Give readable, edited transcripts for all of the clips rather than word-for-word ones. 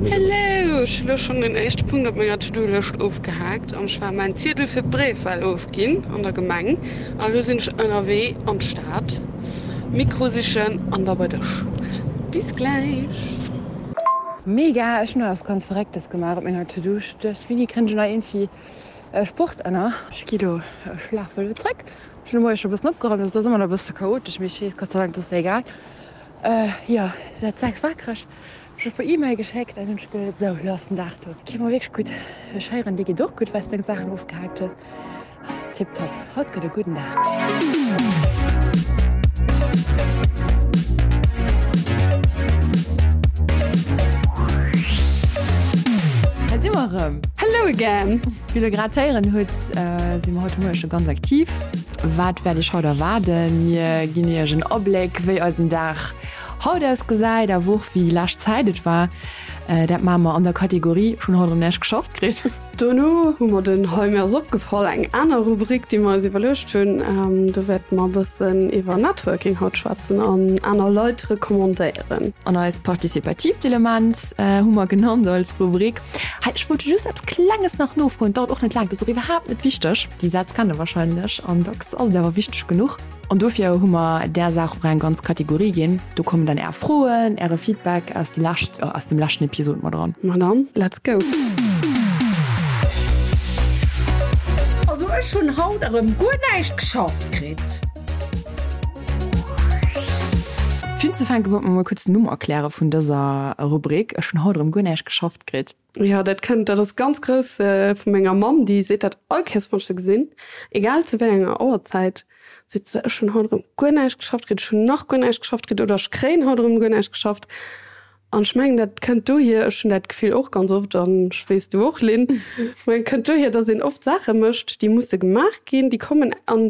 Hello, ech hu lo schonn den éischte Punkt op menger To-Do-Lëscht ofgehaakt an ech war mäin Ziedel fir d'Bréifwal ofginn an der Gemeng a lo sinn ech ënnerwee an d'Stad Mikro sichen an da bei dech. Bis gläich! Mega, ech hun och eppes ganz Verrécktes gemaach op menger To-Do. Ech duecht, wéini kënnt ech nach iergendwéi Sport ënner? Ech gi lo, ech lafe lo zréck. Ech hun de Moie scho bëssen opgeraumt, also et ass ëmmer nach e bësse chaotesch, mee ech weess Gott sei Dank, dat ass egal. Jo, säit 6 wakereg. Ech hu e puer E-Mail geschéckt an hunn ech geduet, sou, lo ass den Dag do. Geet mer wierklech gutt. Ech héieren, dir geet och gutt, well s deng Saachen ofgehaakt hues. Ass tiptop. Haut gëtt e gudden Dag. Hei si mer erëm. Hello again! Wéi der grad héieren hutt, si mer haut de Moie scho ganz aktiv. Wat wäert iech haut erwaarden? Mir ginn iech en Abléck, wéi eisen Dag Haut ausgesäit a Woch wéi lescht Zäit et war. Dat maache mer an der Kategorie Ech hunn haut erëm näischt geschafft kritt. Dono hu mer den Hei mir ass opgefall, eng aner Rubrik, déi mer eis iwwerluecht hunn. Do wäerte mer e bëssen iwwer Networking haut schwätzen an aner Leit recommandéieren. An eist partizipatiivt Element hu mer genannt als Rubrik. Hei, ech wollt just eppes Klenges nach nofroen, dauert och net laang, dat ass och iwwerhaapt net wichteg. Déi Sätz kennt der warscheinlech an dacks ass et awer wichteg genuch. An dofir hu mer där Saach och eng ganz Kategorie ginn. Do kommen dann Är Froen, Äre Feedback aus de lescht, aus dem leschten Episod mat eran. Ma dann, let's go! Also ech hunn haut erëm guer näischt geschafft kritt. Fir unzefänke wollt mer mol kuerz den Numm erkläre vun dëser Rubrik. Ech hunn haut erëm guer näischt geschafft kritt. Jo, dat kënnt, dat ass ganz grouss vu menger Mamm, déi seet dat all Kéiers, wann ech se gesinn, egal zu wéi enger Auerzäit, seet se, ech hunn haut erëm guer näischt geschafft kritt, ech hunn nach guer näischt geschafft kritt oder ech kréien haut erëm guer näischt geschafft. An ech mengen, dat kënnt dohier, ech hunn dat Gefill och ganz oft an ech weess, du och, Lynn, ech mengen, kënnt dohier, datt een oft Saache mécht, déi musse gemaach ginn, déi kommen an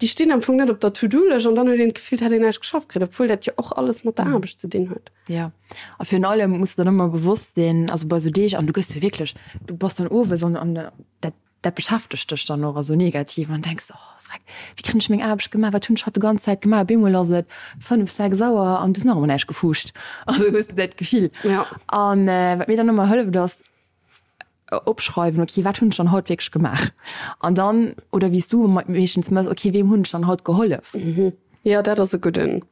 déi stinn am Fong net op der To-do-Lëscht an dann huet een d'Gefill, et hätt een näischt geschafft kritt, obwuel dat jo och alles mat der Aarbecht ze dinn huet. Jo. A virun allem muss de dann ëmmer bewosst sinn, also bei esou Deeg, an du gëss jo wierklech, du bass dann owes an an dat dat beschäftegt dech dann och esou negativ an denks, oh vreck, wéi kréien ech meng Aarbecht gemaach, wat hunn ech haut de ganz Zäit gemaach? Op eemol ass et 5, 6 Auer an du hues nach ëmmer näischt gefuuscht. Also hues de dat Gefill. An wat mir dann ëmmer hëlleft ass, Opschreiwen, ok, wat hunn ech dann haut wierklech gemaach? An dann, oder wéi s du meeschtens méchs, ok, weem hunn ech dann haut gehollef? Jo, dat ass e gudden,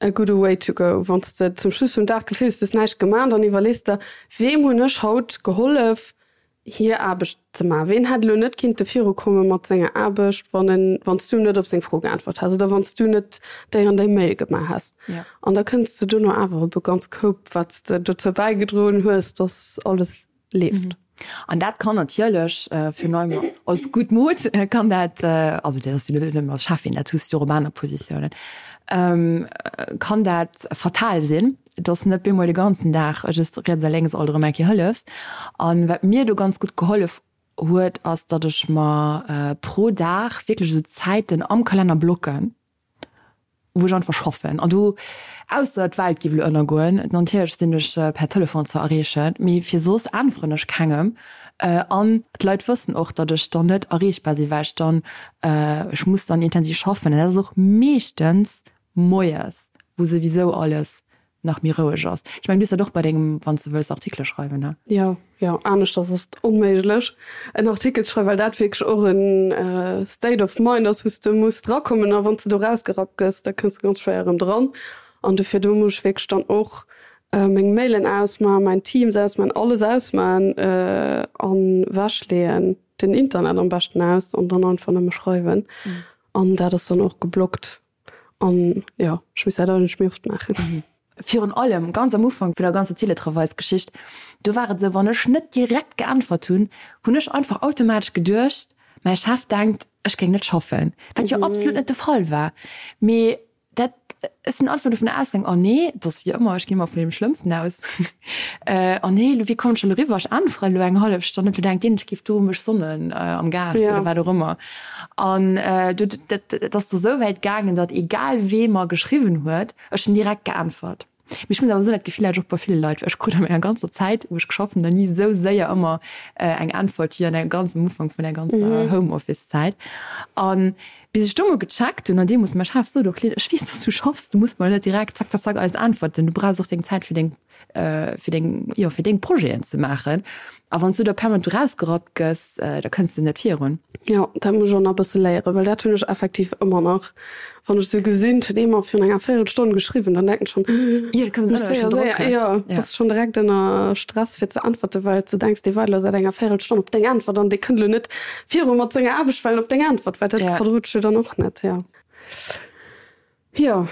e gudde Way to go. Wann s de zum Schluss vum Dag d'Gefill hues, du hues näischt gemaach, dann iwwerlees de, weem hunn ech haut gehollef, hir Aarbecht ze maachen? Ween hätt elo net kinnte virukomme mat senger Aarbecht, wann en, wann s du net op seng Fro geäntwert häss oder wann s du net déi an déi Mail gemaach häss? An da kënns de dono awer op e ganz Koup, wat s de dozou bäigedroen hues, dass alles leeft. An dat kann natierlech virun allem als gutt Mod kann dat, also dat ass jo net nëmmen als Cheffin, dat hues de jo och op aner Positiounen, kann dat fatal sinn, dass net bemol de ganzen Dag just riets a lénks alt erëm eng Kéier hëllefs. An wat mir do ganz gutt gehollef huet, ass, datt ech mer pro Dag wierklech esou Zäiten am Kalenner blocken, wou ech einfach schaffen an do, ausser d'Welt géif elo ënnergoen, natierlech sinn ech per Telefon ze erreechen, mee fir soss äntweren ech kengem an d'Leit wëssen och, datt ech dann net erreechbar sinn, well ech dann, ech muss dann intensiv schaffen an dat ass och meeschtens moies, wou souwisou alles nach méi roueg ass. Ech mengen, du hues dat och bei dengem, wann s de wëlls Artikele schreiwen, ne? Jo, jo, aneschters ass et onméiglech en Artikel ze schreiwen, well dat wierklech och en State of mind ass, wou s de muss drakommen a wann s de do rausgerappt gëss, da kënns de ganz schwéier erëm dran. An dofir do muss ech wierklech dann och meng Mailen ausmachen, mäin Teams ausmachen, alles ausmachen an ewechleeën, den Internet am beschten aus an dann einfach nëmme schreiwen. An dat ass dann och geblockt. An jo, ech muss dat eigentlech méi oft maachen. Virun allem ganz am Ufank vun der ganzer Teletravailsgeschicht, do war et esou, wann ech net direkt geäntwert hunn, hunn ech einfach automatesch geduecht, mäi Chef denkt, ech géing net schaffen, wat jo absolut net de Fall war. Mee dat, ech sinn einfach dovun ausgaang, oh nee, et ass wéi ëmmer, ech ginn ëmmer vun deem Schlëmmsten aus, oh nee, elo wéi kommen ech elo eriwwer, ech äntweren elo eng hallef Stonn net, elo denkt deen, ech géif do mech sonnen am Gaart oder wat och ëmmer. An do, dat, et ass da sou wäit gaangen, datt egal wee mer geschriwwen huet, ech hunn direkt geäntwert. Mee ech muss awer soen, dat Gefill hat ech och bei ville Leit, well ech krut a menger ganzer Zäit, wou ech geschafft hunn, nach ni esou séier ëmmer eng Äntwert wéi an der ganz am Ufank vun der ganzer Homeoffice-Zäit. An bis ech do mol gecheckt hunn, an deemools mäi Chef sot och, Lynn, ech weess, datt s du schaffs, du muss mer net direkt zack, zack, zack alles äntwerten, du brauchs och deng Zäit fir deng. fir deng, jo, fir deng Projeten ze maachen. A wann s du da permanent do rausgerappt gëss, da kënns de net virun. Jo, dat muss ech och nach e bësse léieren, well dat hunn ech effektiv ëmmer nach. Wann ech esou gesinn, et huet ee mer virun enger Véierelstonn geschriwwen, dann denken ech schonn, Jo, da kënns muss du séier, ënner séier, Drock. jo, bass schonn direkt ënner Stress fir ze äntwerten, well s de denks, dee waart elo säit enger Véierelstonn op deng Äntwert an dee kënnt elo net viru mat senger Aarbecht, well en op deng Äntwert waart. Dat verdrot ech jo dann och net, jo. Jo.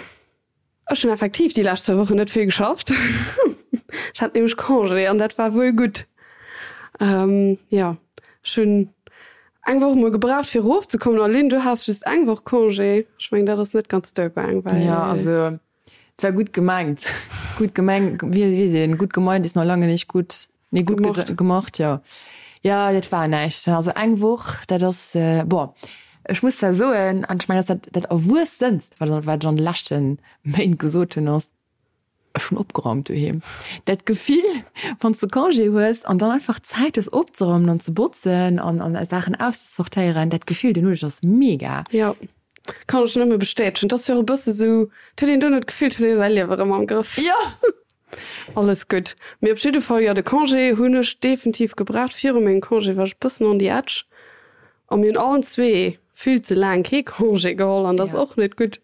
Ech hunn effektiv déi lescht zwou Wochen net vill geschafft. Ech hat nämlech Congé an dat war wuel gutt. Jo, ech hunn eng Woch emol gebraucht fir erofzekommen. A Lynn, du has just eng Woch Congé. Ech mengen, dat ass net ganz duergaang, well. Jo, also et war gutt gemengt. Gutt gemeng, wéi seet een, gut gemeint ist noch lange nicht gut. Nee, gutt gemacht, gemacht jo. Jo, dat war näischt. Also eng Woch, dat ass, bon, ech muss da soen, an ech mengen, dat ass dat dat Erwuessenst, wat wat ech an de leschte Méint gesot hunn, ass, ech hunn opgeraumt doheem. Dat Gefill, wann s de Congé hues an dann einfach Zäit hues opzeraumen an ze botzen an an Saachen auszesortéieren, dat Gefill duerno, dat ass mega. Jo, kann ech nëmme bestätegen. Et ass jo och e bësse sou, et huet een duerno d'Gefill, et huet ee säi Liewe erëm am Grëff. Jo! Alles gutt. Mee op jidde Fall, jo, de Congé hunn ech definitiv gebraucht. Viru mengem Congé war ech e bëssen on the edge. A mir hunn allen zwee vill ze laang kee Congé geholl an dat ass och net gutt.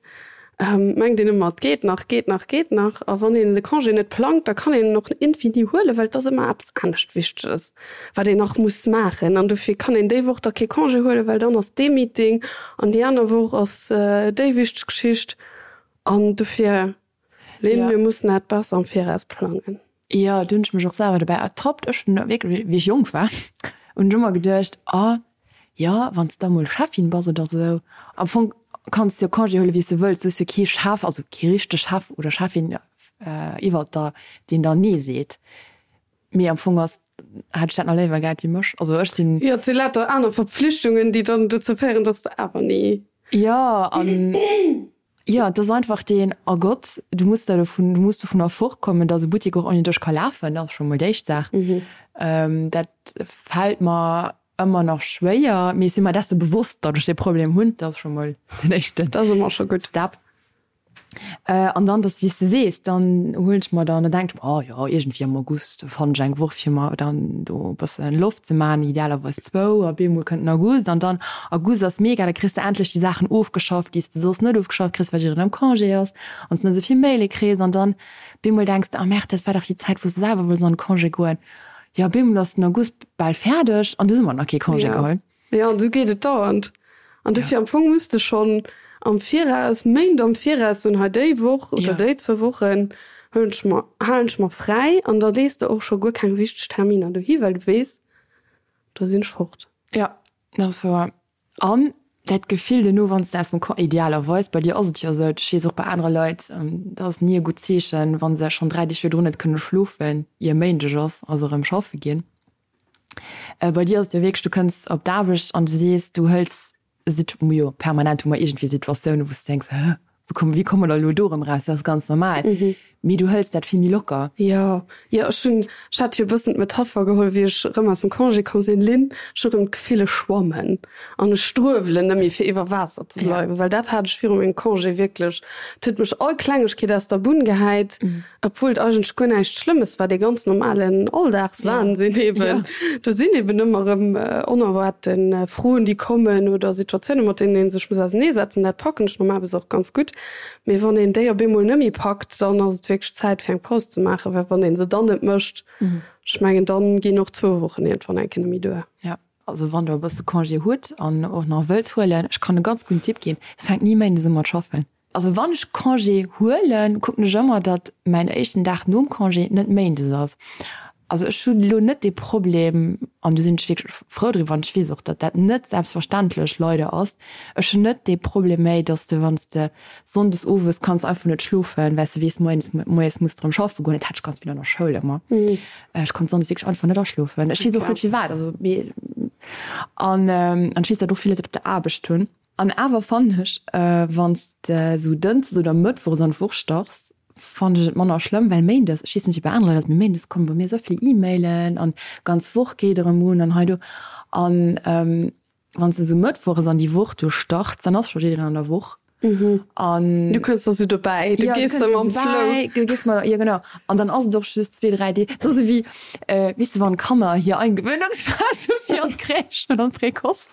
Mengt een ëmmer, et geet nach, geet nach, geet nach. A wann een de Congé net plangt, da kann een en och infini huelen, well et ass ëmmer eppes anescht Wichteges, wat een nach muss maachen. An dofir kann een déi Woch da kee Congé huelen, well dann ass dee Meeting an déi aner Woch ass déi wichteg Geschicht. An dofir Lynn, Ja. mir mussen dat besser am Viraus plangen. Jo, do hunn ech mech och selwer dobäi ertappt. Ech hunn wierklech, wéi ech jonk war, hunn ech ëmmer geduecht, ah jo, wann s de da mol Cheffin bass oder esou, am Fong kanns de jo Congé huelen, wéi s de wëlls, du hues jo kee Chef, also kee richtege Chef oder Cheffin iwwert der, deen der Nee seet. Mee am Fong ass, hätt ech dat nach léiwer gehat wéi mech. Also ech sinn. Jo, et si lauter aner Verpflichtungen, déi dann dozou féieren, dass de awer ni. Jo, an Jo, et ass einfach deen, oh Gott, du muss da dovun, du muss dovunner fortkommen, datt e Buttek och ouni dech ka lafen. Dat ass scho mol déi éischt Saach. Dat fält mer ëmmer nach schwéier, mee ech si mer desse bewosst, datt ech dee Problem hunn. Dat ass scho mol den éischte Dat ass ëmmer scho gutt. Step. An dann, dass, wéi s de sees, dann huelen ech mer dann, da denken ech mer, oh jo, iergendwéi am August fannen ech eng Woch, fir mer dann do e bësse Loft ze maachen, idealerweis zwou, a bemol kënnt den August an dann, August ass mega, da kriss de endlech déi Saachen ofgeschafft, déi s de soss net ofgeschafft kriss, well jiddereen am Congé ass an s de net esou vill Maile kriss an dann bemol denks de, ah merde, dat war dach déi Zäit, wou s de selwer wollts an de Congé goen. Jo, bemol ass den August bal fäerdeg an du hues ëmmer nach kee Congé geholl. Jo, an esou geet et dauernd. An dofir am Fong muss de schonn am Viraus, Méint am Viraus soen, hei déi Woch oder déi zwou Wochen huelen ech mer, halen ech mer fräi an da lees de och scho guer keng wichteg Terminer dohi, well du weess, do sinn ech fort. Jo, dat ass wouer. An dat Gefill duerno, wann s de aus dem Con, idealerweis, bei dir ass et jo esou, ech weess och bei anere Leit, dat ass ni e gutt Zeechen, wa se schonn 3 Deeg virdrun net kënne schlofen, ier Méindeg ass a se erëm schaffe ginn. Bei dir ass et jo wierklech, du kënns op d'Aarbecht an du sees, du hëls Sit, jo permanent hu mer iergendwéi Situatiounen, wou s du denks, hä, wou komme, wéi komme mer elo do erëm raus? Dat ass ganz normal. Mee du hëls dat vill méi locker. Jo, jo, ech hunn, ech hat jo e bëssen d'Metapher geholl, wéi ech erëm aus dem Congé komm sinn, Lynn, ech hu erëm d'Gefill, ech schwammen an ech struewelen net méi fir iwwer Waasser ze bleiwen, well dat hat ech viru mengem Congé wierklech. Et huet mech all Klengegkeet aus der Bunn gehäit. Obwuel et eigentlech guer näischt Schlëmmes war, dee ganz normalen Alldagswahnsinn eben. Do sinn eben ëmmer erëm onerwaarte Froen, déi kommen oder Situatiounen, mat deenen ee sech muss auserneesetzen. Dat packen ech normalerweis och ganz gutt. Mee wann een déi op eemol net méi packt, dann ass et wierklech Zäit fir eng Paus ze maachen, well wann ee se dann net mécht, ech mengen, da ginn och zwou Wochen iergendwann eng Kéier net méi duer. Jo, also wann der e bësse Congé hutt an och nach wëllt huelen, ech kann e ganz gudden Tipp ginn, Fänkt ni méindes u mat schaffen. Also wann ech Congé huelen, kucken ech ëmmer, datt mäin éischten Dag nom Congé net méindes ass. Also ech hunn elo net dee Problem, an do sinn ech wierklech frou driwwer, an ech weess och, datt dat net selbstverständlech leider ass, ech hunn net dee Problem méi, datt s de, wann s de sonndes owes kanns einfach net schlofen, well s de weess, moies moies muss de erëm schaffe goen. Dat hat ech ganz vill an der Schoul ëmmer. Ech konnt sonndes wierklech einfach net aschlofen. Ech weess och net firwat, also mee an an ech weess, datt och vill Leit dat op der Aarbecht hunn. An awer fannen ech, wann s de sou dënschdes oder mëttwochs an d'Woch starts, fannen ech et manner schlëmm, well méindes, ech weess net wéi bei anere Leit ass, mee méindes komme bei mir esou vill E-Mailen an d'ganz Woch geet erëm un an hei do. An wann s de sou mëttwochs an déi Woch do starts, dann ass scho jiddereen an der Woch. An Du kënns da sou dobäi, du gees da mam Flow. Du gees mat, jo genau. An dann ass et och just zwee, dräi Deeg. Et ass esou wéi, weess de, wann d'Kanner hir Eingewöhnungsphase hu fir an d'Crèche oder an d'Précoce.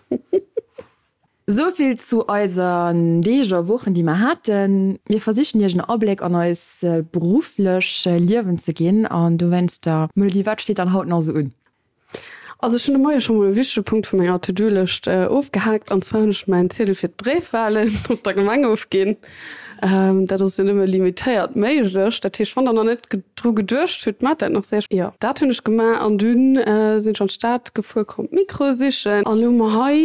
Esou vill zu eisen Deeg a Wochen, déi mer haten. Mir versichen Iech en Abléck an eis berufflech Liewen ze ginn an dowéinster, Melody, wat steet dann haut nach esou un? Also ech hunn de Moie scho mol e wichtege Punkt vu menger To-Do-Lëscht ofgehaakt, an zwar hunn ech mäin Ziedel fir d'Bréifwahlen op der Gemeng ofginn. Dat ass jo nëmme limitéiert méiglech. Dat heescht, wann der nach net dru geduecht hutt, maacht dat nach séier. Jo, dat hunn ech gemaach an dunn sinn ech an d'Stad gefuer, komm d'Mikroe sichen an elo hu mer hei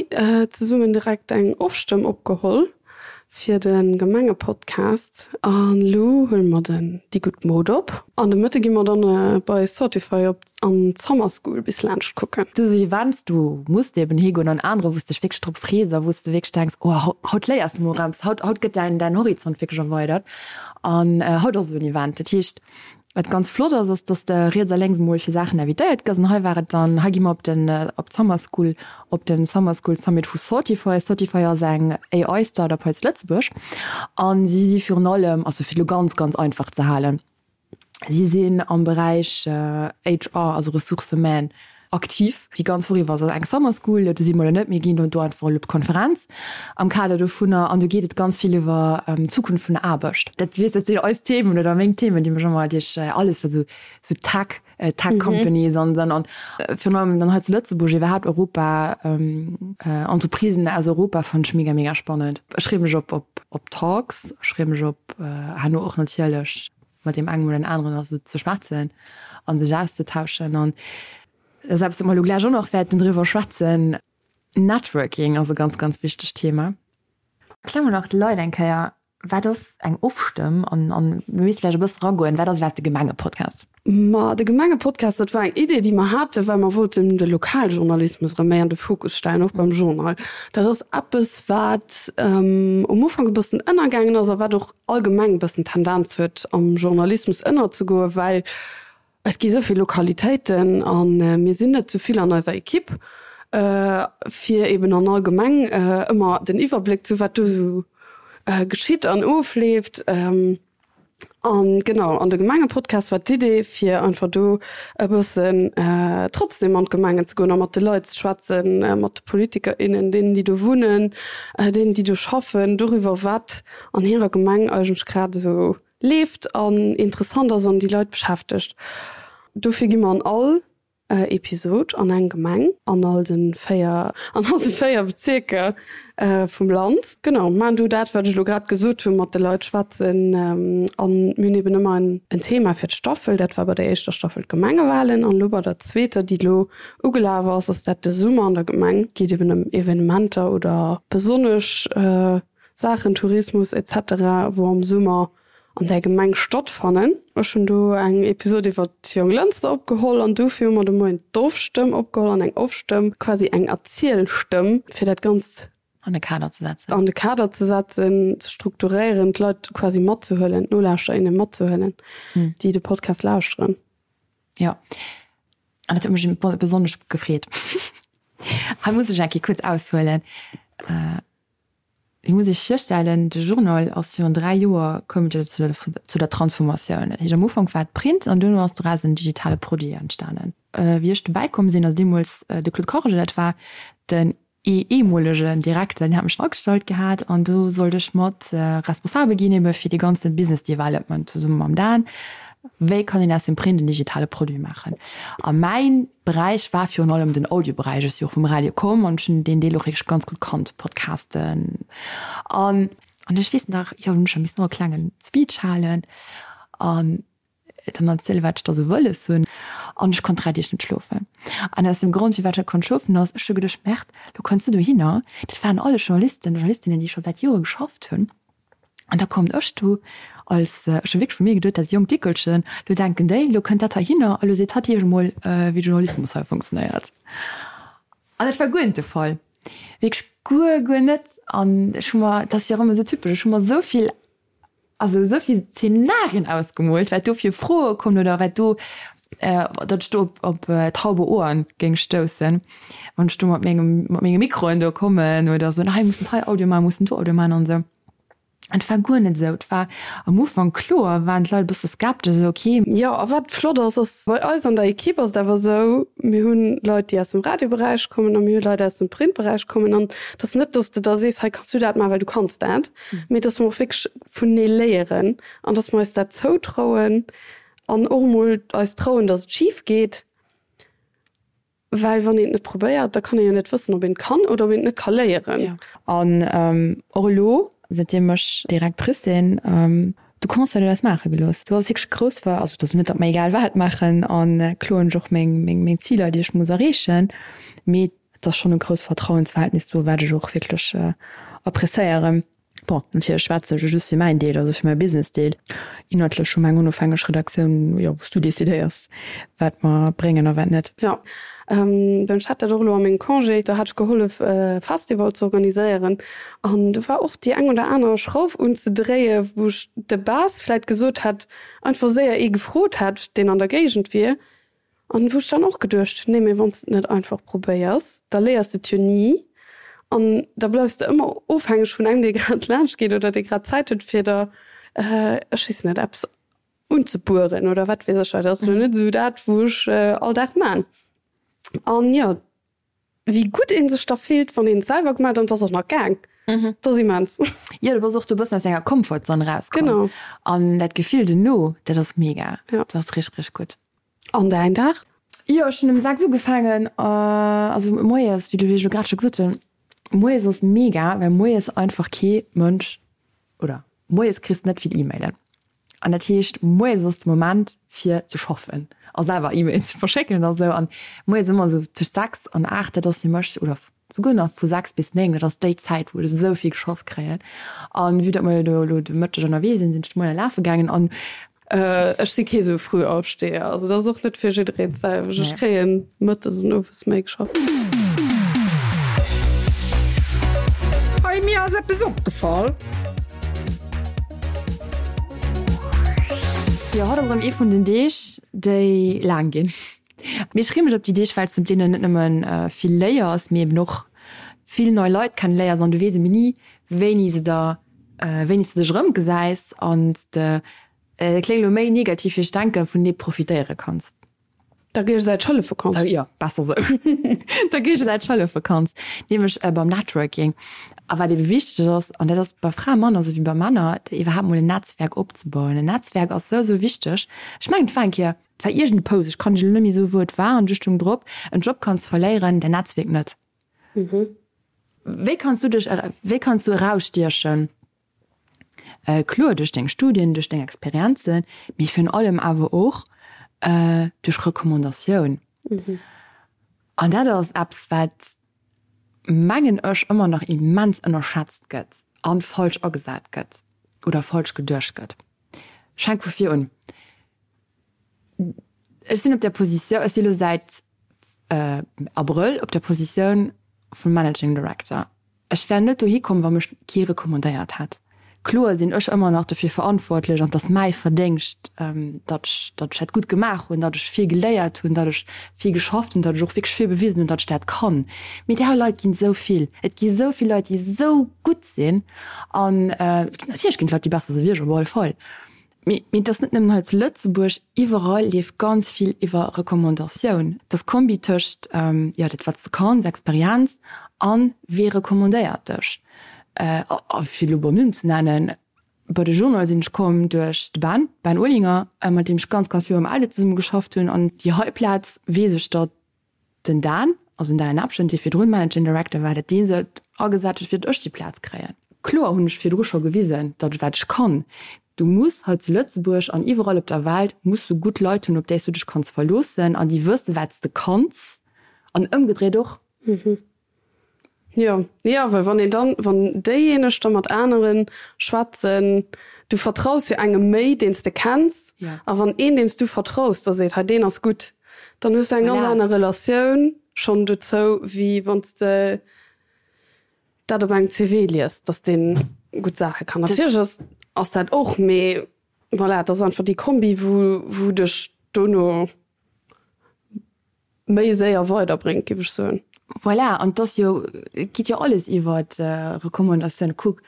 zesummen direkt eng Ofstëmm opgeholl. Fir de Gemengepodcast. An elo huele mer den Déi gutt Mod op. An de Mëtte gi mer dann bei Sortify op an d'Summer School bis laanscht kucken. Du sou Events, do muss de eben higoen an anerer wou s dech wierklech drop frees a wou s de wierklech denks, oh haut léiers de mol eppes, haut haut gëtt däin däin Horizont wierklech erweidert. An haut ass esou en Event. Dat heescht, Wat ganz flott ass, ass dass de riets a lénks mol fir Saachen invitéiert gëss. An hei war et dann, hei gi mer op den, op d'Summer School, op den Summer School Summit vu Sortify. Sortify ass eng AI Startup hei zu Lëtzebuerg an si si virun allem, also fir et elo ganz, ganz einfach ze halen, si sinn am Beräich HR, also Ressources humaines, aktiv. Déi ganz Woch iwwer ass eng Summer School, do si mer elo net, mir ginn do einfach elo op d'Konferenz am Kader dovunner an do geet et ganz vill iwwer d'Zukunft vun der Aarbecht. Dat weess, dat sinn eis Themen oder meng Themen, déi mech ëmmer duerch alles wat esou esou Tech, Tech Companies an dann an virun allem dann hei zu Lëtzebuerg, iwwerhaapt Europa, Entreprisen aus Europa fannen ech mega, mega spannend. Ech freeë mech op op op Talks, ech freeë mech op herno och natierlech mat deem engem oder den aneren och esou ze schwätzen a sech auszetauschen. An dat ass eppes, wou mer elo gläich och nach wäerten driwwer schwätzen, Networking ass e ganz, ganz wichtegt Thema. Erklär mol nach de Leit eng Kéier, wat ass eng Ofstëmm an, an mir misste vläicht e bësse ragoen, wat ass iwwerhaapt de Gemengepodcast? Ma de Gemengepodcast, dat war eng Idee, déi mer haten, well mer wollten de Lokaljournalismus erëm méi an de Fokus stellen, och beim Journal. Dat ass eppes, wat um Ufank e bëssen ënnergaangen ass a wat och allgemeng e bëssen d'Tendenz huet, am Journalismus ënnerzegoen, well et gi sou vill Lokalitéiten a mir sinn net sou vill an eiser Ekipp, fir eben an all Gemeng ëmmer den Iwwerbléck ze hu wat do sou geschitt an ofleeft. An genau, an de Gemengepodcast war d'Idee, fir einfach do e bëssen trotzdem an d'Gemengen ze goen a mat de Leit ze schwätzen, mat de Politiker, innen, deenen, déi do wunnen, deenen, déi do schaffen, doriwwer, wat an hirer Gemeng eigentlech grad esou leeft an interessant ass an déi Leit beschäftegt. Dofir gi mer an all Episod an eng Gemeng an all de 4 an all de 4 Bezierker vum Land. Genau, maachen do dat, wat ech elo grad gesot hunn, mat de Leit schwätzen. An mir hunn eben ëmmer en en Thema fir d'Staffel. Dat war bei der éischter Staffel d'Gemengewalen an elo bei der zweeter, déi elo ugelaf ass, ass dat de Summer an der Gemeng. Geet eben ëm Evenementer oder besonnesch Saachen, Tourismus etc. Wou am Summer an där Gemeng stattfannen. Ech hunn do eng Episod iwwer d'Jonglënster opgeholl an dofir hu mer de Moien d'Offstëmm opgeholl an eng Offstëmm, quasi eng Erzielstëmm, fir dat Ganzt An de Kader ze setzen. An de Kader ze setzen, ze strukturéieren, d'Leit quasi matzehuelen, d'Nolauschterer, innen matzehuelen, déi de Podcast lauschteren. Jo, an dat huet mech besonnesch gefreet. Hei muss ech eng Kéier kuerz aushuelen. Dir musst Iech virstellen, de Journal ass virun 3 Joer koum et jo zu der Transformatioun. Dat heescht am Ufank war et Print an duerno ass doraus en digitale Produit entstanen. Wéi ech dobäi komm sinn, also deemools de Claude Corge, dat war den ehemolegen Direkter, deen hat mech agestallt gehat an do sollt ech mat responsabel ginn ebe fir dee ganze Business Development zesumme mam Dan. Wéi kann een aus dem Print en digitale Produit maachen? A mäin Beräich war virun allem den Audioberäich. Ech si och vum Radio komm an ech hunn deen Deel och wierklech ganz gutt kannt, Podcasten. An an ech weess nach, jo, hunn ech scho missen och e klengen Speech halen an dann erzielen, wat ech da sou wëlles hunn. An ech konnt 3 Deeg net schlofen. An aus dem Grond, firwat ech net konnt schlofen, ass, ech hu geduecht, Merde, lo kënns du dohinner, dat waren alles Journalisten, Journalistinnen, déi scho säit Jore geschafft hunn. An da kommt ech do als, ech hu wierklech vu mir geduet, dat jonkt Dickelchen, lo denken déi, lo kënnt dat heihinner a lo seet hatt iech emol, wéi Journalismus hei funktionéiert. An dat war guer net de Fall, wierklech guer, guer net. An ech hu mer, dat ass jo och ëmmer esou typesch, ech hu mer esou vill, also esou vill Zenarien ausgemoolt, wat do fir Froe kommen oder wat do, datt ech do op, op taube Ohren géing stoussen, wann ech do mat mengem, mat menge Mikroen do kommen oder soen, hei mussen hei Audio maachen, mussen do Audio maachen an esou. Et war guer net esou. Et war am Ufank, kloer waren d'Leit e bësse skeptesch, esou ok. Jo, a wat flott ass, ass bei eis an der Equipe ass et awer esou, mir hunn Leit, déi aus dem Radioberäich kommen a mir hu Leit aus dem Printberäich kommen. An et ass net, dass de da sees, hei kanns du dat maachen, well du kanns dat, mee dass mer och wierklech vunenee léieren an dass mer eis dat zoutrauen an och emol eis trauen, dass et schif geet. Well wann een et net probéiert, da kann ee jo net wëssen, ob een et kann oder ob een et net ka léieren. An och elo, säitdeem ech Directrice sinn, de Conseil huet eis maache gelooss. Do ass wierklech grouss, also et ass net, datt mer egal wat maachen a kloer hunn ech och meng Ziler, déi ech muss erreechen, mee et ass schonn e grousst Vertrauensverhältnis do, wat ech och wierklech appréciéieren. Bon, natierlech schwätzen ech just fir mäin Deel, also fir mäi Business-Deel. Inhaltlech hu mer eng onofhängeg Redaktioun, jo, wou s du decidéiers, wat mer bréngen a wat net. Jo, ech hat dat och elo a mengem Congé, do hat ech gehollef e Festival ze organiséieren an do war och déi eng oder aner Schrauf unzedréie wou ech de base vläit gesot hätt, einfach séier ee gefrot hätt, deen an der Géigend wier. An wou ech dann och geduecht hunn, nee mee wann s de et net einfach probéiers, da léiers de et jo ni an da bleifs de ëmmer ofhängeg vun engem, dee grad laanscht geet oder dee grad Zäit huet fir der, ech weess net, eppes unzebueren oder wat weess ech. Dat ass elo net esou dat, wou ech all Dag man. An jo, Wéi gutt een sech da fillt, wann een et selwer gemaach huet an et ass och nach gaang. Dat ass immens. Jo, du bass och do e bëssen aus denger Comfortzone erauskomm. Genau. An dat Gefill dono, dat ass mega. Ja. Dat ass richteg, richteg gutt. An däin Dag? Jo, ech hunn um 6 ugefaangen, also moies, wéi du, wéi ech elo grad scho gesot hunn, moies ass mega, well moies einfach kee Mënsch, oder moies kriss de net vill E-Mailen. An dat heescht, moies ass de Moment fir ze schaffen a selwer E-Mails ze verschécken a sou. An moies ëmmer esou tëscht 6 an 8, dat ass fir mech, oder souguer nach vu 6 bis 9, dat ass déi Zäit, wou ech esou vill geschafft kréien. An vue datt mer jo do elo de Mëtteg ënnerwee sinn, sinn ech de Moien lafe gaangen an. Ech si kee sou Frühaufsteher, also dat ass och net fir jiddereen d'selwecht. Ech kréien mëttes an owes méi geschafft. Hey, mir ass eppes opgefall. Jo, haut ass erëm ee vun den Deeg, déi laang ginn. Mee ech freeë mech op déi Deeg, well s de op deenen net nëmmen vill léiers, mee eben och vill nei Leit kenneléiers an du weess eben ni, wéini se der, wéini s de dech erëmgesäis an s de, dat kléngt elo méi negativ wéi ech denken, vun deem profitéiere kanns. Der Géigesäiteg hëllefe kanns. Jo, besser sou. Der Géigesäiteg hëllefe kanns, nämlech beim Networking. A wat ebe wichteg ass, an dat ass bei Frae manner sou wéi bei Männer, iwwerhaapt mol en Netzwerk opzebauen. En Netzwerk ass sou, sou wichteg. Ech mengen, et war eng Kéier, et war iergend e Post, ech kann lech elo net méi soen, wou et war, an du stoung drop, En Job kanns verléieren, däin Netzwierk net. Wéi kanns du dech, wéi kanns du erausstiechen? Kloer duerch deng Studien, duerch deng Experienzen, mee virun allem awer och duerch Recommandatioun. An dat ass eppes, wat, mengen ech, ëmmer nach immens ënnerschätzt gëtt a falsch agesat gëtt oder falsch geduecht gëtt. Ech fänke vu vir un. Ech sinn op där Positioun, ech si elo säit Abrëll op der Positioun vum Managing Director. Ech wär net dohi komm, wa mech kee recommandéiert hätt. Kloer sinn ech ëmmer nach dofir verantwortlech an et ass mäi Verdéngscht, datt ech, datt ech dat gutt gemaach hunn, datt ech vill geléiert hunn, datt ech vill geschafft hunn, datt ech och wierklech vill bewisen hunn, datt ech dat kann. Mee där Leit ginn esou vill. Et gi esou vill Leit, déi esou gutt sinn an natierlech ginn et Leit, déi besser si wéi ech, op alle Fall. Mee et ass net nëmmen hei zu Lëtzebuerg, iwwerall leeft ganz vill iwwer Recommandatioun. Et ass d'Kombi tëscht, jo, dat wat s de kanns, Experienz, an wee recommandéiert dech. A fir elo beim Numm ze nennen, bei de Journal sinn ech komm duerch de Ben, Ben Olinger, mat deem ech ganz, ganz vill beim Eldo zesumme geschafft hunn. An déi hei Plaz weess ech, datt Den Dan, also den Dan Abschent, dee virdrun Managing Director war, dat dee sech agesat huet, fir datt ech déi Plaz kréien. Kloer hunn ech virdru scho gewisen, datt ech wat ech kann. Du muss hei zu Lëtzebuerg an iwwerall op der Welt muss du gutt Leit hunn, op déi s du dech kanns verloossen an déi wëssen, wat s de kanns an ëmgedréit och. Jo, jo, well wann een dann, wann déijéineg da mat anere schwätzen, du vertraus jo engem méi, deen s de kenns, a wann een, deem s du vertraus, da seet, hei deen ass gutt, dann hues du eng ganz aner Relatioun schonn dozou, wéi wann s de dat op engem CV liest, datt dee gutt Saache kann. Natierlech ass, ass dat och, mee voilà, et ass einfach déi Kombi, wou, wou dech dono méi séier weiderbréngt, géif ech soen. Voilà, an et ass jo, et geet jo alles iwwer Recommandatioun. Kuck,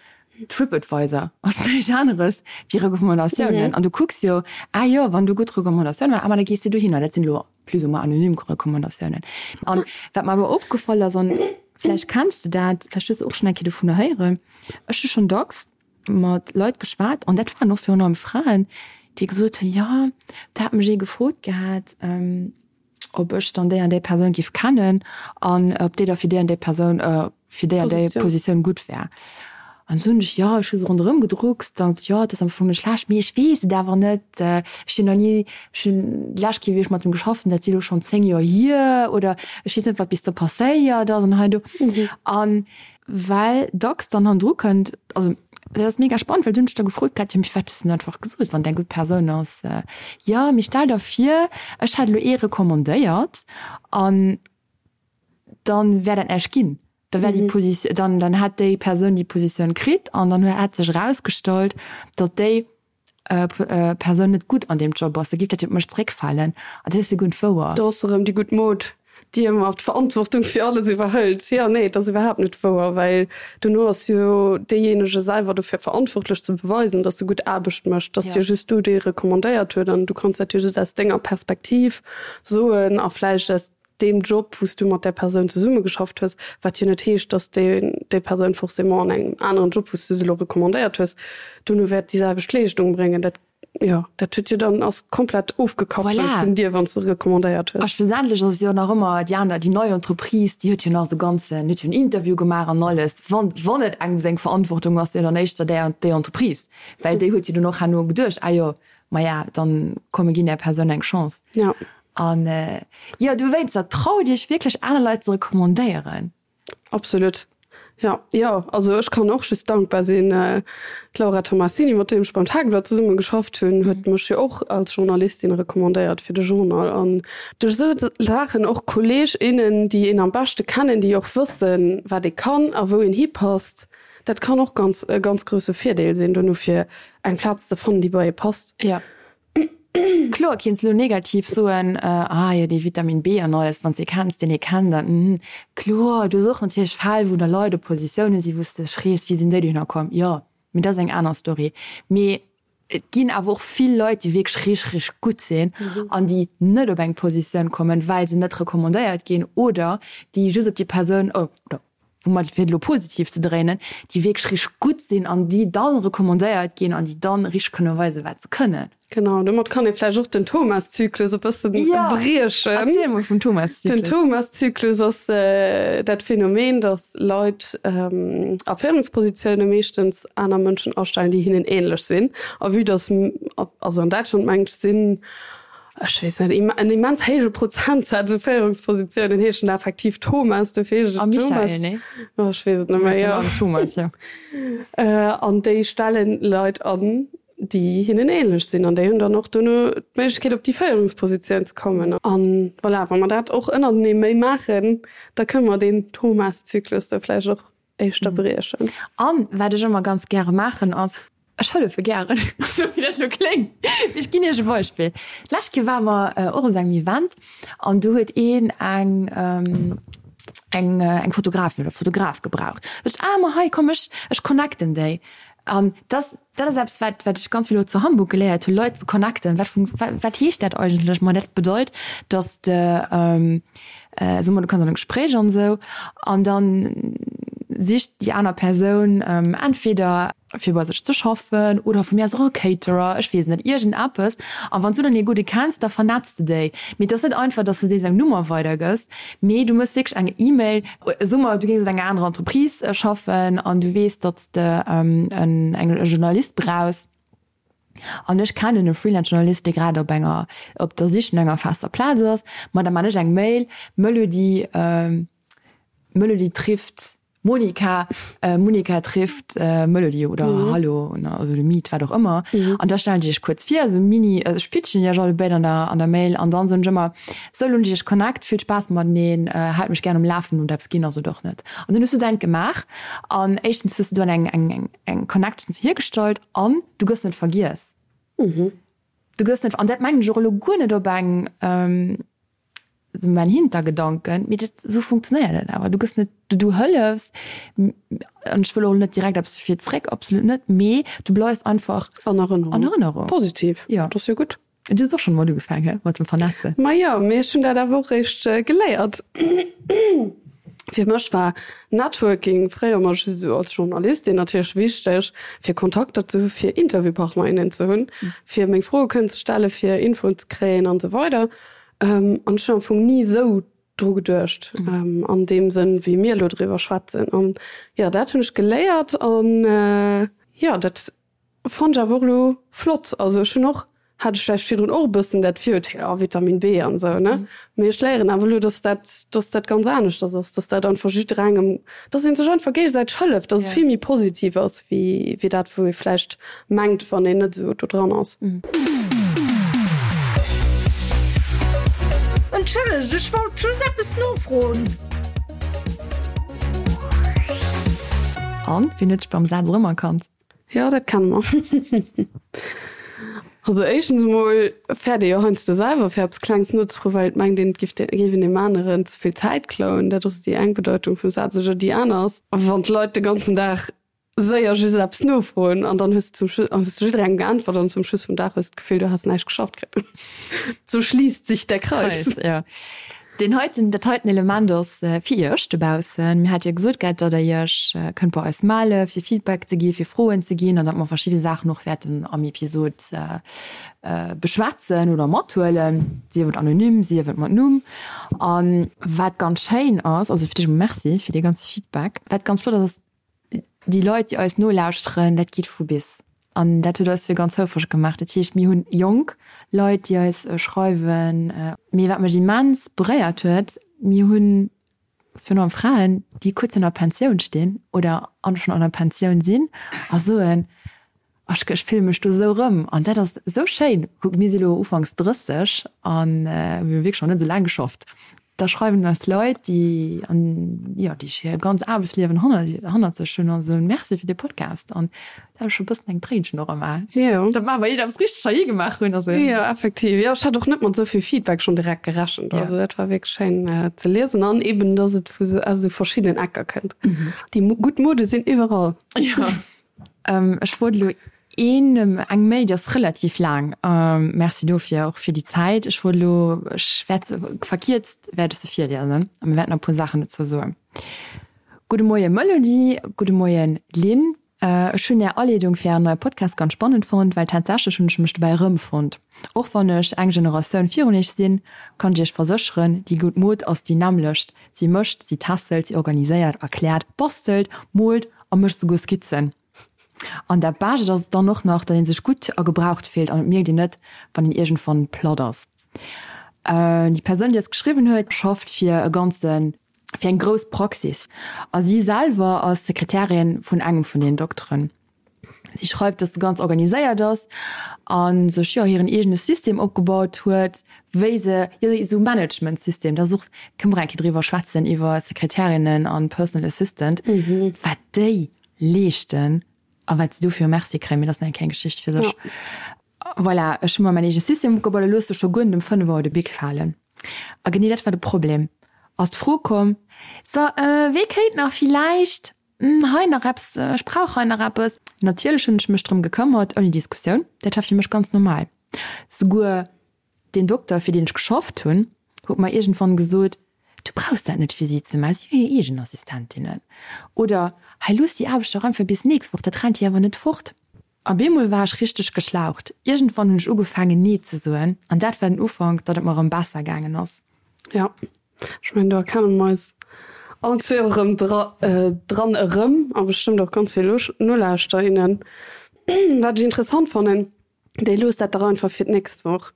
TripAdvisor ass näischt aneres wéi Recommandatiounen. An du kucks jo, ah jo, wann do gutt Recommandatioune waren, ah ma da gees de dohinner. Dat sinn elo plus ou moins anonym Recommandatiounen. An wat mer awer opgefall ass, an vläicht kenns de dat, vläicht hues de och schonn eng Kéier dovunner héieren, ech hu schonn dacks mat Leit geschwat, an dat waren och virun allem Fraen, déi gesot hunn, jo, do hat mech ee gefrot gehat, ob ech dann déi an déi Persoun géif kennen an ob déi da fir déi an déi Persoun, fir déi an déi Positioun gutt wär. An du hunn ech, jo, ech hu se ronderëm gedruckst an jo, et ass am Fong net schlecht, mee ech weess et awer net, ech sinn nach ni, ech hunn déi lescht Kéier, wéi ech mat em geschafft hunn, dat si elo schonn 10 Joer hier oder ech weess net, wat bis do passéiert ass an hei an do. An Well dacks dann hannendru kënnt, also dat ass mega spannend, well du hunn ech da gefrot gehat, jo mee firwat hues du net einfach gesot, wann et eng gutt Persoun ass? Jo, mee stell der vir, ech hätt elo ee recommandéiert an dann wär dat näischt ginn, da wär déi Positioun, dann dann hätt déi Persoun déi Positioun kritt an dann hätt sech erausgestallt, datt déi Persoun net gutt an deem Job ass, da géif dat jo op mech zeréckfalen. An dat ass jo guer net wouer. Do ass erëm déi gutt Mod, déi ëmmer d'Verantwortung fir alles iwwerhëlt. Jo, nee, et ass iwwerhaapt net wouer, well dono ass jo deejéinege selwer dofir verantwortlech ze beweisen, datt e gutt Aarbecht mécht. Et ass jo just du, dee recommandéiert huet an du kanns dat jo just aus denger Perspektiv soen a vläicht aus deem Job, wou s du mat där Persoun zesummegeschafft hues, wat jo net heescht, dass déi déi Persoun forcément an engem aneren Job, wou s du se elo recommandéiert hues, dono wäert déi selwecht Leeschtung bréngen. Dat, jo, dat huet jo dann, ass komplett ofgekappelt Voilà. vun dir, wann s de recommandéiert A hues. schlussendlech ass et jo nach ëmmer déi aner, déi nei Entreprise, déi huet jo nach esou ganzen, huet jo en Interview gemaach an alles. Wann, wann et engem seng Verantwortung ass, jo dann éischter där, déi Entreprise, well déi huet jo dunn och herno geduecht, ah jo, maja, dann komm mir ginn där Persoun eng Chance. Ja. An jo, dowéinster, traut iech wierklech aner Leit ze recommandéieren. Absolut. Ja, jo, also ech kann och just dankbar sinn. D'Laura Tomassini, mat deem ech beim Tageblatt zesumme geschafft hunn, huet mech jo och als Journalistin recommandéiert fir de Journal. An duerch esou Saachen och Kolleg, innen, déi een am beschte kennen, déi och wëssen, wat ee kann a wou een hipasst, dat kann och ganz e ganz grousse Virdeel sinn dono fir eng Plaz ze fannen, déi bei ee passt. Jo. Kloer kinns lo negativ soen, ah jo dee Vitamin B an alles, wanns de kenns deen ee kennt an mhm. Kloer, du hues och natierlech Fäll wou da Leit op Positiounen si wous de dech frees wéi sinn déi dohinner komm. Jo, mee dat ass eng aner Story. Mee et ginn awer och vill Leit déi wierklech richteg richteg gutt sinn an déi net op eng Positioun kommen, well se net recommandéiert ginn oder déi just op déi Persoun, oder woumat fir et elo positiv ze dréinen, déi wierklech richteg gutt sinn an déi dann recommandéiert ginn an déi dann richteg kënne weisen, wat se kënnen. Genau, domat kann ee vläicht och den Thomas-Zyklus e bësse briechen. Erziel mol vum Thomas-Zyklus. Den Thomas-Zyklus ass dat Phänomen, datt Leit a Féierungspositioune meeschtens aner Mënschen astellen, déi hinnen änlech sinn. A vue datt, also an Däitschland mengt ech, sinn Ech weess net, en immens héije Prozentsaz u Féierungspositiounen heeschen da effektiv Thomas, dofir heescht et Thomas. A Michael, nee? Oh, ech weess et net méi, jo. Thomas, jo. An déi stellen Leit an, déi hinnen ähnlech sinn an déi hunn dann och dono d'Méiglechkeet op déi Féierungspositioun ze kommen. An voilà, wa mer dat och ënnertenee méi maachen, da kënne mer deen Thomas-Zyklus da vläicht och éischter briechen. An wat ech ëmmer ganz gäre maachen ass, ech hëllefe gären, esou wéi dat elo kléngt, mee ech ginn Iech e Beispill. D'lescht Kéier ware mer och op esou engem Event an do huet een eng eng eng Fotografin oder Fotograf gebraucht. Sot ech, ah ma hei komm ech ech connecten déi. An dass dat ass eppes wat wat ech ganz vill elo zu Hamburg geléiert hunn, Leit ze connecten. Wat funkt wat heescht dat eigentlech? Ma dat bedeit, dass de soe mer du kanns an e Gespréich an esou an dann sicht déi aner Persoun entweder fir bei sech ze schaffen oder vu mir aus och e Caterer, ech weess net, iergend eppes. An wann s du dann ee gudde kenns, da vernetz de déi. Mee et ass net einfach, dass de deem seng Nummer weidergëss, mee du méchs wierklech eng E-Mail. Soe mer, du géings an enger anerer Entreprise schaffen an du weess, datt s de en e Journalist brauchs. An ech kennen e Freelance-Journalist, dee grad op enger, op der Sich no enger fester Plaz ass. Ma da man ech eng Mail, Melody, Melody trifft Monika, Monika trifft Melody oder Hallo oder Meet, wat och ëmmer. An da stellen ech iech kuerz vir, esou mini, ech pitchen iech allebéid an der, an der Mail an dann soen ech ëmmer, Sou, lo hunn ech iech connect, vill Spaass mateneen, haalt mech gären um Lafen, hutt eppes ginn ass oder och net. An dann hues du däint gemaach an éischtens hues du dann eng, eng, eng, eng Connection hiergestallt an du gëss net vergiess. Du gëss net, an dat mengen ech och elo guer net op eng. Esou mäin Hintergedanken, mee dat, esou funktionéiert et awer. Du gëss net, du, du hëllefs, an ech wëll och net direkt eppes dofir zréck, absolut net, mee du bleifs einfach An Erënnerung. An Erënnerung. Positiv. Jo. Dat ass jo gutt. Du hues och schonn emol ugefaang, he, mat dem Vernetzen? Ma jo, mee ech hunn dat awer och réischt geléiert. Fir mech war Networking fréier emol just esou als Journalistin natierlech wichteg, fir Kontakter ze hu fir Interviewpartner, innen ze hunn, fir meng Froe kënnen ze stellen, fir Infoen ze kréien an esou weider. An ech hunn am Fong ni esou dru geduecht an deem Sënn, wéi mir elo driwwer schwätzen. An jo, dat hunn ech geléiert an jo, dat fannt ech awer och elo flott. Also ech hunn och, hat ech vläicht virdrun och e bëssen dat Virurteel, oh Vitamin B an esou, ne? Mee ech léieren awer elo, dass dat, dass dat ganz aneschters ass, dass dat einfach jidderengem, dass ee sech einfach géigesäiteg hëlleft, dass et vill méi positiv ass wéi, wéi dat, wou ee vläicht mengt, wann een net esou do dran ass. Entschëllegt, ech wollt just eppes nofroen. An, wien huet dech beim Saz erëmerkannt? Jo, dat kenne mer. Also éischtens emol fäert ee jo heiansdo selwer fir eppes Klengs nozefroen, well et mengt een, et giff géif een deem aneren ze vill Zäit klauen. Dat ass déi eng Bedeitung vum Saz. Oder déi aner ass, wann d'Leit de ganzen Dag séier just eppes nofroen an dann hues de zum Schluss, hues de jidderengem geäntwert an zum Schluss vum Dag hues de d'Gefill, du häss näischt geschafft kritt. So schliisst sich der Kreis. Kreis, jo. Deen heiten, dat heiten Element ass fir Iech dobaussen. Mir hate jo gesot gehat, datt Der Iech kënnt bei eis melle fir Feedback ze gi, fir Froen ze ginn an datt mer verschidde Saachen och wäerten am Episod beschwätzen oder mathuelen, sief et anonym, sief et mat Numm. A wat ganz schéin ass, also fir d'éischt emol Merci fir dee ganze Feedback, wat ganz flott ass, ass, Déi Leit, déi eis nolauschteren, dat geet vu bis. An dat huet eis fir ganz houfreg gemaach. Dat heescht, mir hunn jonk Leit, déi eis schreiwen. Mee wat mech immens beréiert huet, mir hunn virun allem Fraen, déi kuerz virun der Pensioun stinn oder schonn an der Pensioun sinn a soen, Ech ech fille mech do esou erëm an dat ass esou schéin. Kuck, mir si lo ufanks 30 an mir hu wierklech nach net esou laang geschafft. Da schreiwen eis Leit, déi an jo, déi hir ganz Aarbechtsliewen hannert hannert sech hunn a soen, Merci fir dee Podcast. An da hu ech scho e bëssen eng Tréinchen och am A. Jo. Dat maache mer iergendeppes richteg hei gemaach hunn. Also. Jo, effektiv. Jo, ech hat och net mat esou vill Feedback schonn direkt gerechent. Also dat war wierklech schéin ze liesen an eben, dass et vu aus esou verschiddenen Ecker kënnt. Déi gutt Mode sinn iwwerall. Jo. Ech wollt elo een, eng Mail, déi ass relativ laang, Merci dofir och fir déi Zäit. Ech wollt elo, ech wäert se verkierzt wäert ech se virliesen a mir wäerten nach e puer Saachen dozou soen. Gudde Moie Melody, gudde Moien Lynn. Ech hunn Är Aleedung fir Ären neie Podcast ganz spannend fonnt, well tatsächlech hunn ech mech dobäi erëmfonnt. Och wann ech eng Generatioun virun Iech sinn, kann ech Iech versécheren, déi gutt Mod ass déi nämmlecht. Si mécht, si tässelt, si organiséiert, erkläert, bastelt, moolt a mécht souguer Skizzen. An dat Bescht ass dann och nach, datt ee sech gutt a gebraucht fillt an et mierkt een net, wann een iergendwann platt ass. Déi Persoun, déi eis geschriwwen huet, schafft fir e ganze, fir eng grouss Praxis a si selwer ass Sekretärin vun engem vun den Dokteren. Si schreift, dass se ganz organiséiert ass a sech, jo, hiren eegene System opgebaut huet, wéi se, jo, esou Managementsystem, dat ass och, kënne mer eng Kéier driwwer schwätzen, iwwer Sekretärinnen an Personal Assistant, wat déi leeschten a wat se dofir Merci kréien, mee dat ass nach eng kleng Geschicht fir sech. Voilà, ech hu mer mäin eege System opgebaut a loosse scho guer net um 5 Auer de Bic falen. A genee dat war de Problem, ass d'Fro komm, So, wee kéint nach villäicht Hei nach eppes, ech brauch hei nach eppes. Natierlech hunn ech mech drëm gekëmmert, ouni Diskussioun. Dat war fir mech ganz normal. Souguer deen Dokter, fir deen ech geschafft hunn, huet mer iergendwann gesot, Du brauchs dat net fir si ze maachen, si hu hir eegen Assistentinnen. Oder, Hei, looss déi Aarbecht dach einfach bis nächst Woch, dat rennt dir awer net fort. A bemol war ech richteg geschlaucht. Iergendwann hunn ech ugefaangen, Nee ze soen, an dat war den Ufank, datt et mer erëm besser gaangen ass. Jo, ech mengen, do erkenne mer eis allen zwee och erëm dran erëm a bestëmmt och ganz vill Nolauschterer, innen. Wat ech interessant fannen, Déi loosst dat dach einfach fir d'nächst Woch.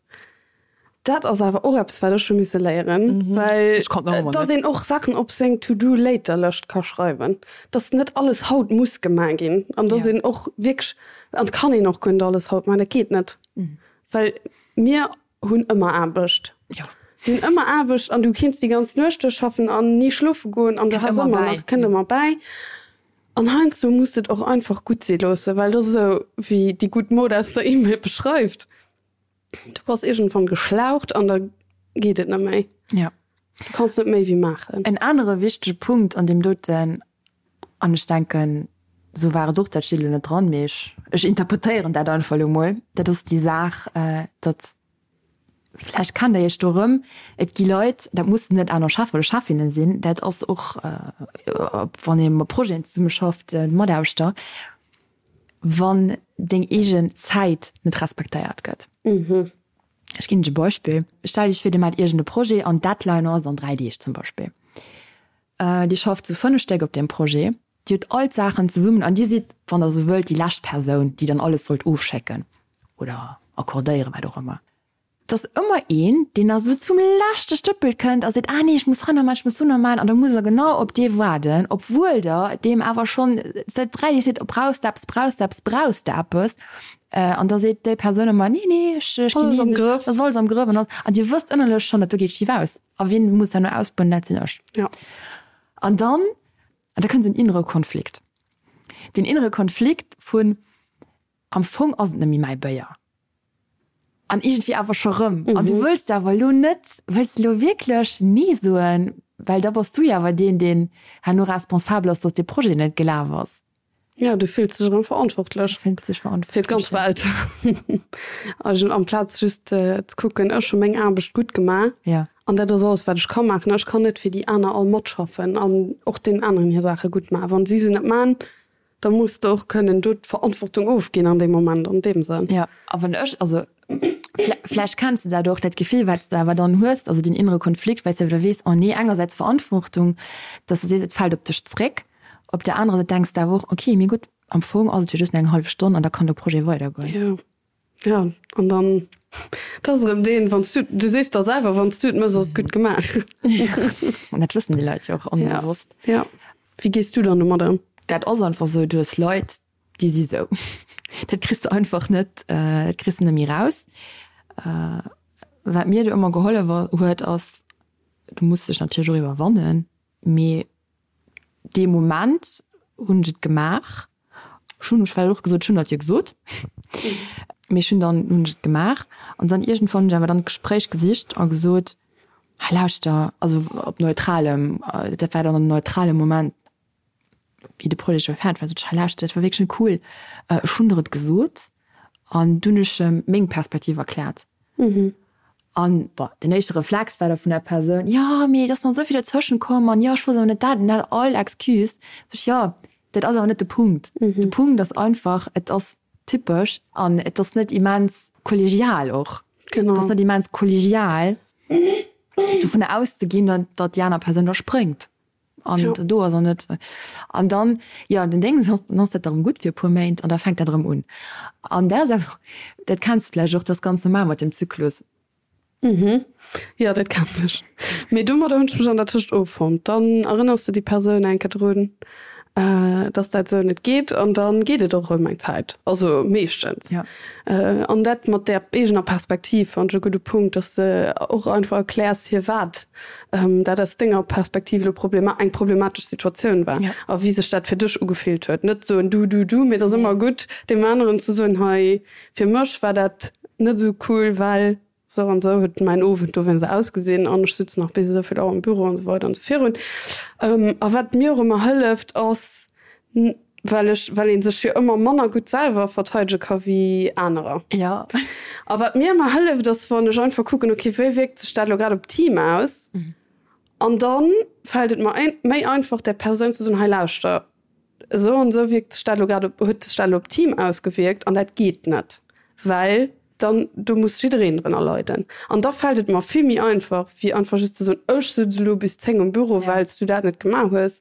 Dat ass awer och eppes, wat ech hu misse léieren, well Ech konnt nach ëmmer dass net. een och Saachen op seng To-do-later-Lëscht ka schreiwen, dass net alles haut muss gemaach ginn an dass Ja. een och wierklech, an et kann een och guer net alles haut maachen, dat geet net, well mir hunn ëmmer Aarbecht. Jo. Mir hunn ëmmer Aarbecht an du kinns déi ganz Nuecht duerchschaffen an ni schlofe goen an du Kënnt has ëmmer ëmmer bäi. nach, kënnt ëmmer bäi. An heiansdo muss de et och einfach gutt si loossen, well dat ass esou, wéi déi gutt Mod aus der E-Mail beschreift, Du bass iergendwann geschlaucht an da geet et net méi. Ja. Du kanns net méi wéi maachen. En anere wichtege Punkt an deem doten, an ech denken, esou war et och, dat steet elo net dran, mee ech, ech interpretéieren dat einfach elo mol, dat ass déi Saach, datt, vläicht kennt Der Iech do erëm, et gi Leit, dat mussen net aner Chef oder Chefinnen sinn, dat ass och, wann ee mat Projeten zesummeschafft, Mataarbechter, wann deng eegen Zäit net respektéiert gëtt. Ech ginn lech e Beispill. Stell Iech vir, Dir maacht iergend e Projet an d'Deadline ass an 3 Deeg zum Beispill. Dir schafft zu 5 Stéck op deem Projet. Dir hutt all d'Saachen zesummen an Dir sidd, wann Der esou wëllt, déi lescht Persoun, déi dann alles sollt ofschécken oder accordéieren, wat och ëmmer. Et ass ëmmer een, deen da sou zum leschte Stëppel kënnt a seet, Ah nee, ech muss hei nach maachen, ech muss do nach maachen. An da musst Der genau op dee waarden, obwuel Der deem awer schonn säit 3 Deeg seet, Brauchs de eppes, brauchs de eppes, brauchs de eppes? An da seet déi Persoun ëmmer, Nee, nee, ech, ech ginn Alles am Grëff. Dat ass alles am Grëff. An an Dir wësst ënnerlech schonn, dat do geet schif aus. A wien muss herno ausbueden? Dat sinn ech. Ja. An dann, an da kënnt esou en innere Konflikt. Deen innere Konflikt vun, Am Fong ass et net méi mäi Béier. An iergendwéi awer scho rëm. An du wëlls awer elo net, wëlls de elo wierklech Nee soen? Well da bass du jo awer deen, deen herno responsabel ass, datt dee Projet net gelaf ass. Ja, du fills dech erëm verantwortlech. Du fills dech verantwortlech. Fir d'ganz Welt. Also amplaz just ze kucken, ech hu meng Aarbecht gutt gemaach. Ja. An dat ass alles, wat ech ka maachen. Ech kann net fir déi aner all matschaffen an och deenen aneren hir Saache gutt maachen. Wann si se net maachen, da muss de och kënnen do d'Verantwortung ofginn an deem Moment, an deem Sënn. Ja, a wann ech, also vläicht kenns de dat och, dat Gefill, wat s de awer dann hues, also deen innere Konflikt, well s de awer da weess, oh nee, engersäits Verantwortung, dass de sees, et fält op dech zréck, Op der anerer Säit denks de awer och, ok, mee gutt, am Fong ass et jo just eng hallef Stonn an da kann de Projet weidergoen. Jo, jo, an dann, dat ass erëm deen, wann s du, du sees der selwer, wann s du et méchs, ass et gutt gemaach. An dat wëssen déi Leit jo och onbewosst. Ja, ja. Wéi gees du dann domat ëm? Dat ass einfach esou, du hues Leit, déi si sou. Dat kriss de einfach net, dat kriss de net méi raus. Wat mir do ëmmer gehollef huet, ass, du muss dech natierlech och iwwerwannen, mee Dee Moment hunn ech et gemaach. Ech hunn ech well och gesot, ech hunn dat jo gesot. Mee ech hunn dann hunn ech et gemaach an dann iergendwann hunn ech awer dann d'Gespréich gesicht a gesot, hei lauschter, also op neutralem, dat war dann en neutrale Moment, wéi de Projet scho fäerdeg war, sot ech, hei lauschter, dat war wierklech net cool, ech hunn der et gesot an dunn hunn ech em meng Perspektiv erkläert. An, bon, den éischte Reflex war da vun der Persoun, jo, mee et ass nach esou vill dozwëschen komm an jo, ech wosst awer net dat an dat, all Excuse. Sot ech, jo, dat ass awer net de Punkt. De Punkt ass einfach, et ass typesch an et ass net immens kollegial och. Genau. Et ass net immens kollegial, dovunner auszeginn, datt déi aner Persoun da spréngt. An ja. do ass er net. An dann, ja, den Ding ass, dann ass dat erëm gutt fir e puer Méint an da fänkt dat erëm un. An dat ass awer, dat kenns de vläicht och, dat ass ganz normal mat dem Zyklus. Mhm. Jo, dat kennen ech. Mee domadder hunn ech mech an der Tëscht offonnt. Dann erënners de déi Persoun eng Kéier drun, dass dat esou net geet an dann geet et och erëm eng Zäit, also meeschtens. Ja. An dat mat där eegener Perspektiv fannen ech e gudde Punkt, dass de och einfach erkläers, firwat dat aus denger Perspektiv elo problema eng problematesch Situatioun war a wéi sech dat fir dech ugefillt huet. Net soen du, du, du, mee et ass ëmmer gutt, deem aneren ze soen, hei fir mech war dat net esou cool, well esou an esou huet mäin Owend dowéinst ausgesinn an ech sutz nach bis esou vill Auer am Büro an esou weider an esou virun. A wat mir och ëmmer hëlleft ass, Well ech, well ee sech jo ëmmer manner gutt selwer verteidege ka wéi anerer. Ja. A wat mir ëmmer hëlleft, ass wann ech einfach kucken, okay, wéi wierkt sech dat elo grad op d'Team aus? An da fält et mer méi einfach, där Persoun ze soen, hei lauschter, esou an esou wierkt sech dat elo grad op, huet sech dat elo op d'Team ausgewierkt an dat geet net, well dann do muss jiddereen drënner leiden. An da fält et mer vill méi einfach, wéi einfach just ze soen, ech sutz elo bis 10 um Büro, well s du dat net gemaach hues.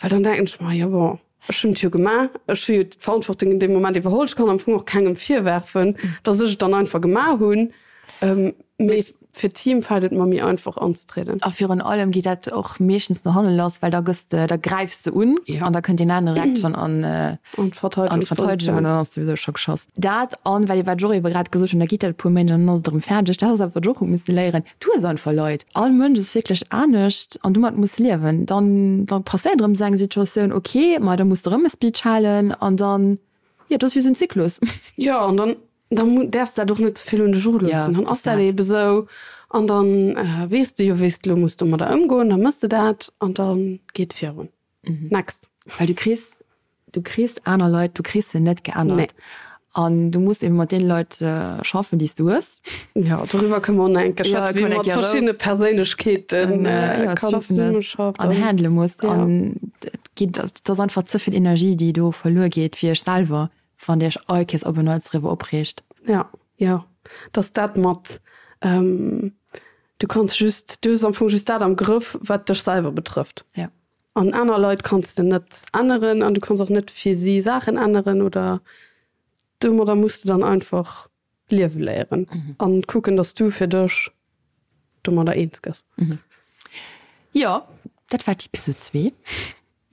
Well dann denken ech mer, jo bon, ech hunn et jo gemaach, ech hu jo d'Verantwortung in deem Moment iwwerholl, ech kann am Fong och kengem virwerfen, datt ech et dann einfach gemaach hunn. Mee fir d'Team fält et mer méi einfach anzetrieden. A virun allem geet dat och meeschtens no hanne lass, well da gëss de, da gräifs de un an da kënnt deen aneren direkt schonn an d'Verteidegung an dann ass souwisou scho geschoss. Dat an, well wat ech och ebe grad gesot hunn, da geet dat e puer Méint an dann ass et erëm fäerdeg. Dat ass awer wat ech och hu misse léieren, Du hues einfach Leit. All Mënsch ass wierklech anescht an domat muss liewen. Dann dann passéiert erëm esou eng Situatioun, ok, ma da muss de erëm e Speech halen an dann, jo, dat ass wéi esou en Zyklus. Jo, an dann dann däerfs dat och net ze vill un dech eruloossen. Dann ass dat eebe sou. An dann weess de jo, wéi s de elo muss domadder ëmgoen, da mëss de dat an da geet virun. Next. Well du kriss, du kriss aner Leit, du kriss se net geännert. Nee. An du muss eben mat deene Leit schaffen, déi s du hues. Jo, doriwwer kënne mer och nach eng Kéier schwätzen, wéi ee mat verschiddene Perséinlechkeeten kann zesummeschaffen an handele muss. An et geet, et ass einfach ze vill Energie, déi do verluer geet fir iech selwer, wann Dir iech all Kéiers op en Neits driwwer opreegt. Jo, jo, dass dat mat, du kanns just, du hues am Fong just dat am Grëff, wat dech selwer betrëfft. Jo. An aner Leit kanns de net änneren an du kanns och net fir si Saachen änneren oder domadder muss de dann einfach liewe léieren an kucken, dass du fir dech domadder eens gëss. Jo, dat war d'Episode 2.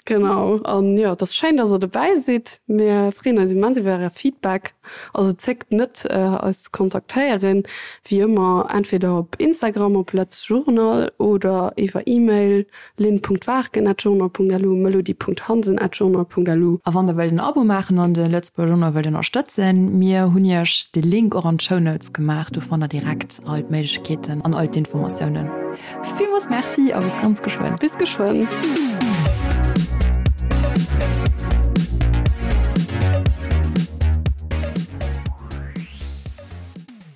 Genau, an jo, et ass schéin, dass der dobäi sidd. Mir freeën eis immens iwwer äre Feedback. Also zéckt net, eis ze kontaktéieren, wéi ëmmer entweder op Instagram op letzjournal oder iwwer E-Mail lynn.waarken@journal.lu, melody.hansen@journal.lu. A wann der wëllt en Abo maachen an de Lëtzebuerger Journal wëllt ënnerstëtzen, mir hunn iech de Link och an d'Show Notes gemaach, do fannt der direkt all d'Méiglechkeeten an all d'Informatiounen. Villmools Merci a bis ganz geschwënn. Bis geschwënn.